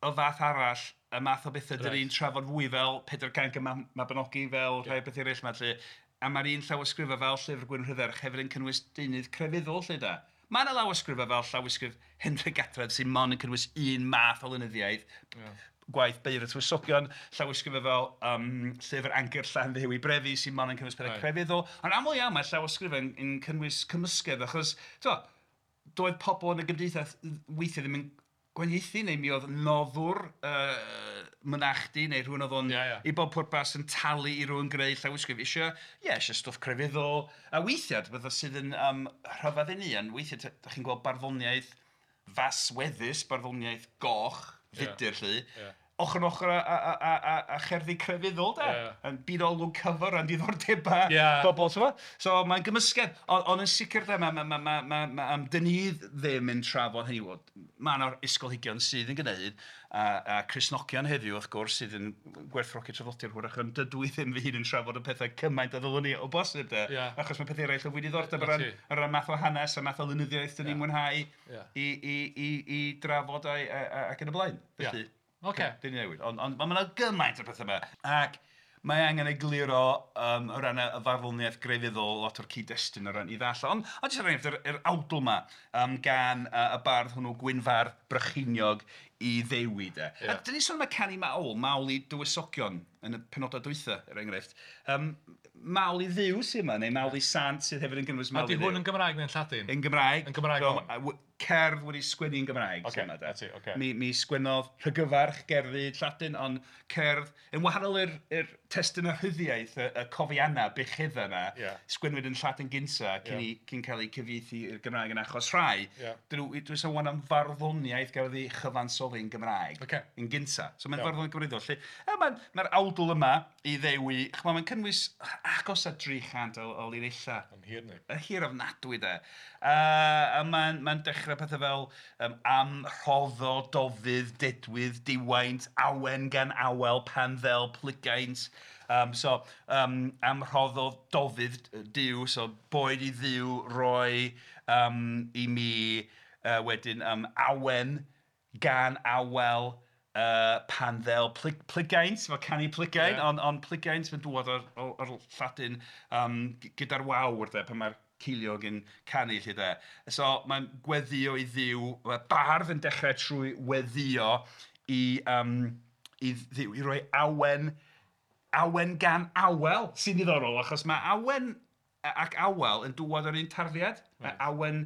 o fath arall, y math o bethau dan ni'n trafod fwy fel Pedair Cainc y Mabinogi, fel rhai bethau eraill 'ma 'lly. A mae'r un llawysgrifau fel Llyfr Gwyn Rhydderch hefyd yn cynnwys deunydd crefyddol 'lly de. Mae yna lawysgrifau fel llawysgrif Hendre Gadref sy'n mond yn cynnwys un math o lenyddiaeth, gwaith Beirdd y Tywysogion, llawysgrifau fel Llyfr Angerdd Llanddewi Brefi sy'n mond yn cynnwys pethau crefyddol. Ond aml iawn mae llawysgrifau yn cynnwys cymysgedd achos tibod, doedd pobl yn y gymdeithas weithiau ddim yn gwahaniaethu neu mi oedd noddwr mynachdy neu rhywun oedd o'n i bob pwrpas yn talu i rywun greu llawysgrif eisiau, ie, eisiau stwff crefyddol. A weithiau, bethau sydd yn rhyfedd i ni, ond weithiau dach chi'n gweld barddoniaeth fasweddus, barddoniaeth goch, fudr 'lly, ochr yn ochr â cherddi crefyddol de. Yn byd olwg cyfer a'n diddordebau bobl, ti'n gwbod? So mae'n gymysgedd, ond yn sicr de, dyn ni ddim yn trafod hynny, wel, mae yna ysgolheigion sydd yn gwneud, a Cristnogion heddiw wrth gwrs sydd yn gwerthfawrogi traddodiad hwyrach, ond dydw i ddim fy hun yn trafod y pethau cymaint a ddylwn i o bosib de, achos mae pethau eraill o fwy diddordeb o ran math o hanes a math o lenyddiaeth dyn ni'n mwynhau i drafod ac yn y blaen. Felly, dyn ni'n newid. Ond mae yna gymaint o pethau yma. Ac mae angen egluro o ran y farddoniaeth grefyddol, lot o'r cyd-destun o ran i ddallt. Ond jyst er enghraifft, yr awdl yma gan y bardd hwnnw Gwynfardd Brycheiniog i Ddewi de. A dyn ni'n sôn am y canu mawl, mawl i dywysogion yn y penodau dwytha, er enghraifft. Mawl i Dduw sydd yma, neu mawl i sant sydd hefyd yn cynnwys mawl i Dduw.
Ydy hwn yn Gymraeg neu'n Lladin?
Yn Gymraeg.
Yn Gymraeg.
Cerdd wedi sgwennu yn Gymraeg. Mi sgwennodd Rhygyfarch gerddi Lladin, ond cerdd yn wahanol i'r testun a rhyddiaeth, y cofiannau, bucheddau yna, sgwennwyd yn Lladin gynta cyn cael eu cyfieithu i'r Gymraeg yn achos rhai. Dwi'n sôn am farddoniaeth gafodd ei chyfansoddi yn Gymraeg yn gynta. So mae'n farddoniaeth gwreiddiol. Mae'r awdl yma i Ddewi, mae'n cynnwys agos at 300 o linellau.
Yn hir ni.
Yn hir ofnadwy de. A mae'n dechrau pethau fel am rhoddo, dofydd, dedwydd, diwaint, awen gan awel, pan ddel, plygaint. So, am rhoddo, dofydd, Duw, so boed i Dduw roi i mi wedyn awen gan awel, pan ddel, plygaint, fel canu plygain, ond plygaint mae'n dŵad o'r Lladin gyda'r wawr de, pan mae'r ceiliog yn canu 'lly de. So mae'n gweddio i Dduw, mae bardd yn dechrau trwy weddio i Dduw, i roi awen, awen gan awel, sy'n ddiddorol, achos mae awen ac awel yn dŵad o'r un tarddiad. Mae awen,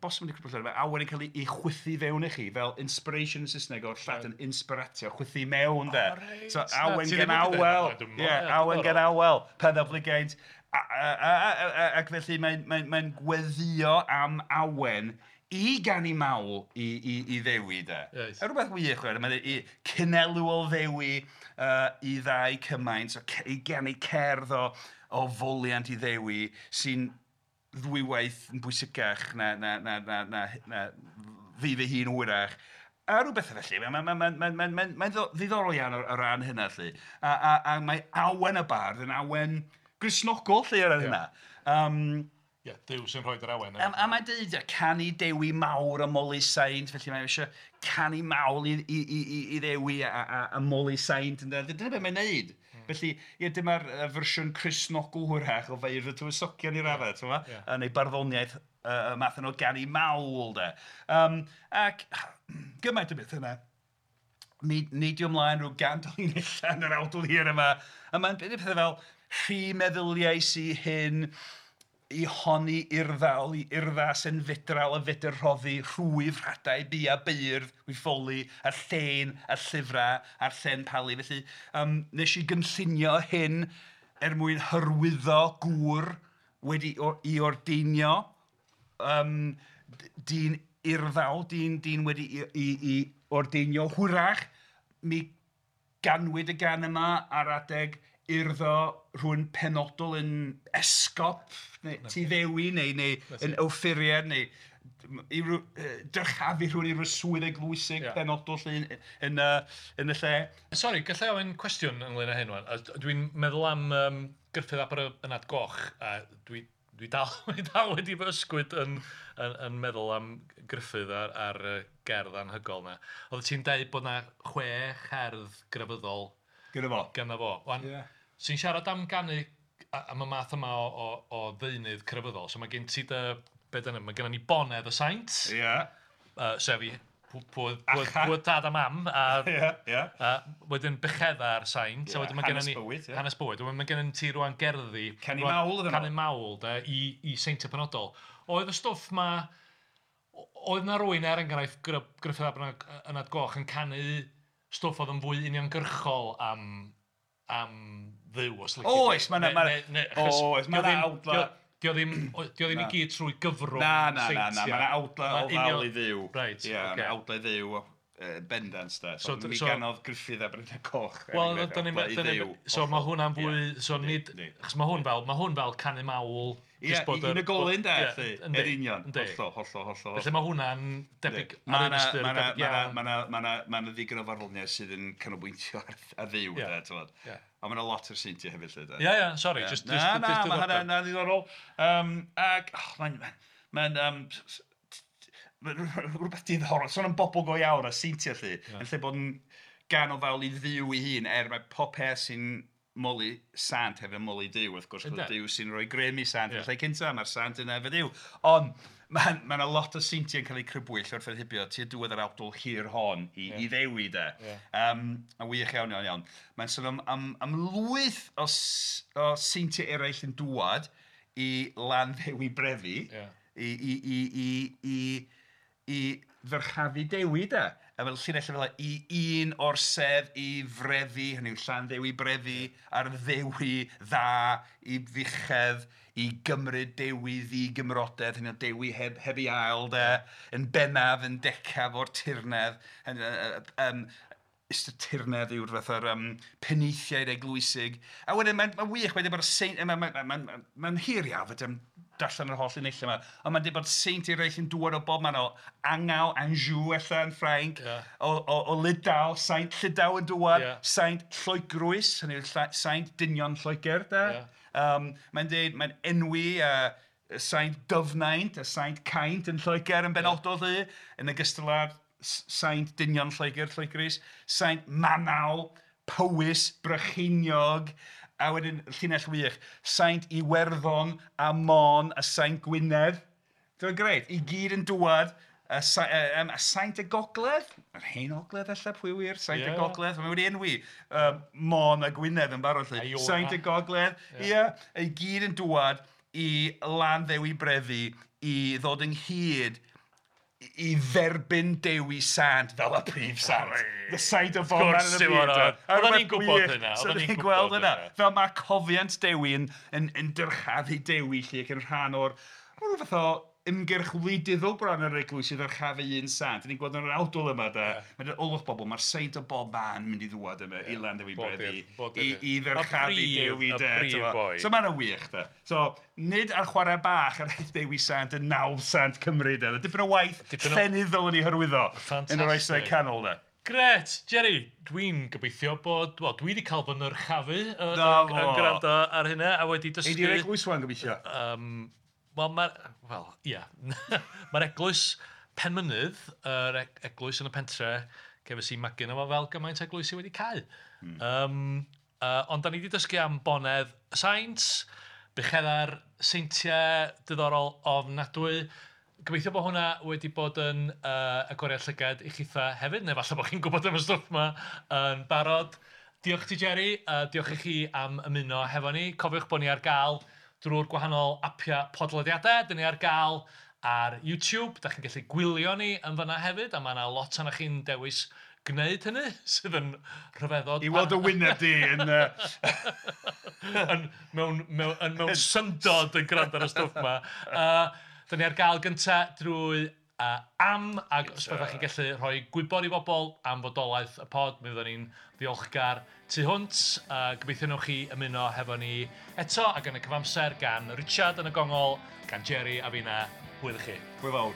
bosib yn crybwyll, mae awen yn cael ei chwythu fewn i chi, fel inspiration yn Saesneg o'r Lladin inspiratio, chwythu mewn de. So awen gan awel, awen gan awel, pan ddel plygaint. Ac felly mae'n gweddio am awen i ganu mawl i Ddewi de. A rhywbeth wych, mae'n cynelw o Ddewi i ddau cymaint, i ganu cerdd o foliant i Ddewi sy'n ddwywaith yn bwysicach na fi fy hun hwyrach. A rhywbeth felly, mae'n ddiddorol iawn o ran hynna 'lly. A mae awen y bardd yn awen Gristnogol 'lly ar hynna.
Ie, Duw sy'n rhoi'r awen.
A mae'n dweud, canu Dewi mawr a moli saint, felly mae eisiau canu mawl i Ddewi a moli saint. Dyna beth mae'n neud. Felly, ie, dyma'r fersiwn Cristnogol hwyrach o Feirdd y Tywysogion i raddau, ti'n gwbod? Neu barddoniaeth y math yno o ganu mawl, de. Ac gymaint o beth yna. Mi neidio ymlaen rhyw 100 o linellau yn yr awdl hir yma. A mae'n pethau fel rhy meddyliais i hyn, i honni urddawl, i urddas yn fedral a fedr rhoddi, rhwyf rhadau, bia beirdd, wyffoli, a'r llen, a'r llyfrau, a'r llen palu. Felly, nes i gynllunio hyn er mwyn hyrwyddo gŵr wedi i ordeinio, dyn urddawl, dyn wedi i ordeinio hwyrach. Mi ganwyd y gan yma ar adeg urddo rhywun penodol yn esgop neu Tŷ Ddewi neu yn offeiriad neu i dyrchafu rhywun i ryw swydd eglwysig penodol 'lly yn y lle.
Sori, gallai ofyn cwestiwn ynglyn â hyn wan. Dwi'n meddwl am Gruffudd ap yr Ynad Goch, a dwi dal wedi fy ysgwyd yn meddwl am Gruffudd a'r gerdd anhygoel 'na. Oeddet ti'n deud bod 'na 6 cherdd grefyddol
Gyda fo.
Gyda fo. Wan, ti'n siarad am ganu am y math yma o ddeunydd crefyddol. So mae gen ti dy, be dyna, mae gennym ni bonedd y saint.
Ie. Yeah.
Sef i pwy tad a mam. A,
yeah, yeah.
A wedyn buchedda'r saint.
Yeah,
a wedyn mae
hanes
gennym ni,
bywyd. Yeah.
Hanes bywyd. Wedyn mae gennym ti rwan gerddi.
Canu mawl iddyn nhw.
Canu mawl, de, i seintiau penodol. Oedd y stwff ma, oedd na rywun er enghraifft Gruffudd ap Ynad Goch yn canu stwff oedd yn fwy uniongyrchol am Dduw, os lici di.
Oes, mae 'na awdla.
Dio ddim i gyd trwy gyfrwng seintiau.
Na, mae 'na awdla o fawl i Dduw.
Reit,
oce. Mae 'na awdla i Dduw bendant, da. So, mi ganodd Gruffudd ap Ynad Coch.
Wel, so mae hwnna'n fwy, so nid, achos mae hwn fel canu mawl.
Ie, unigolyn de, yn union, hollol, hollol, hollol.
Felly mae hwnna'n debyg ar un ystyr, debyg iawn.
Mae 'na ddigon o farddoniaeth sydd yn canolbwyntio ar Dduw, de, ti'n. Ond mae 'na lot o'r seintiau hefyd, lle, de.
Ie, ie, sori, just
Na, mae hynna'n ddiddorol. Ac, mae'n rhywbeth diddorol, sôn am bobl go iawn a seintiau, lle, yn lle bod yn gan o fawl i Dduw ei hun, er mae pob peth sy'n moli sant hefyd yn moli Duw, wrth gwrs, Duw sy'n rhoi grym i sant yn lle cynta, mae'r sant yna efo Duw. Ond mae yna lot o seintiau yn cael eu crybwyll wrth hibio tua diwedd yr awdl hir hon i Ddewi, de. A wych iawn, iawn, iawn. Mae'n sôn am lwyth o seintiau eraill yn dŵad i Landdewi Brefi, i ddyrchafu Dewi, de. A fel llinell fel i un o'r sedd i frefi, hynny yw Llanddewi Brefi, a'r ddewi dda i fuchedd, i gymryd Dewi ddigymrodedd, hynny yw Dewi heb ei ail, de, yn bennaf, yn decaf o'r tirnedd. Ystyr tirnedd yw'r fath o'r penaethiaid eglwysig. A wedyn mae'n wych, mae'n dweud bod saint, mae'n hir iawn, fedra i'm darllen yr holl unellau yma, ond mae'n dweud bod saint eraill yn dŵad o bob man o Angau, Anjou ella yn Ffrainc, o Lydaw, saint Llydaw yn dŵad, saint Lloegrwys, hynny yw saint dynion Lloegr, de. Mae'n dweud, mae'n enwi saint Dyfnaint a saint Caint yn Lloegr yn benodol, lly, yn ogystal â'r saint dynion Lloegr, Lloegrwys, saint Manaw, Powys, Brycheiniog, a wedyn llinell wych, saint Iwerddon a Môn a saint Gwynedd. Dwi'n grêt, i gyd yn dŵad, a saint y Gogledd, yr hen Ogledd ella, pwy wir, saint y Gogledd, mae wedi enwi Môn a Gwynedd yn barod, lle. Saint y Gogledd, ie, i gyd yn dŵad i Landdewi Brefi i ddod ynghyd i dderbyn Dewi Sant fel y prif sant. The saint o bob man yn y byd.
Oedden ni'n gwybod hynna.
Oedden ni'n gweld hynna. Fel mae cofiant Dewi yn dyrchafu Dewi lle ac yn rhan o'r rhyw fath o ymgyrch wleidyddol bron yr eglwys i ddyrchafu un sant. Ni'n gweld yn yr awdl yma, de. Mae'n olwch bobl, mae'r saint o bob man mynd i ddŵad yma i Landdewi Brefi i ddyrchafu Dewi, de. So mae'n wych, de. So, nid ar chwarae bach yr Dewi Sant yn nawdd sant Cymru, de. Dipyn o waith llenyddol yn ei hyrwyddo yn yr oesau canol, de.
Gret, Jerry, dwi'n gobeithio bod, wel, dwi wedi cael fy nyrchafu yn gwrando ar hynna a wedi dysgu...
Ei di'r eglwys wan gobeithio?
Wel, ia. Mae'r eglwys Penmynydd, yr eglwys yn y pentre, cefais i magu yno fo fel gymaint eglwys i wedi cau. Ond da ni wedi dysgu am bonedd y saint, bucheddau'r seintiau diddorol ofnadwy. Gobeithio bod hwnna wedi bod yn agoriad llygad i chitha hefyd, neu falle bod chi'n gwybod am y stwff yma yn barod. Diolch ti, Jerry, diolch i chi am ymuno hefo ni. Cofiwch bod ni ar gael drwy'r gwahanol apiau podlediadau. Dyn ni ar gael ar YouTube. Da chi'n gallu gwylio ni yn fanna hefyd, a mae yna lot ohonoch chi'n dewis gwneud hynny, sydd yn rhyfeddod.
I weld y wyneb di yn...
mewn syndod yn gwrando ar y stwff yma. Dyn ni ar gael gynta drwy am, ac os byddwch chi'n gallu rhoi gwybod i bobl am fodolaeth y pod, mi fyddwn ni'n ddiolchgar tu hwnt. Gobeithio newch chi ymuno hefo ni eto, ac yn y cyfamser gan Richard yn y gongol, gan Jerry a finna. Hwyl i chi.
Hwyl fawr.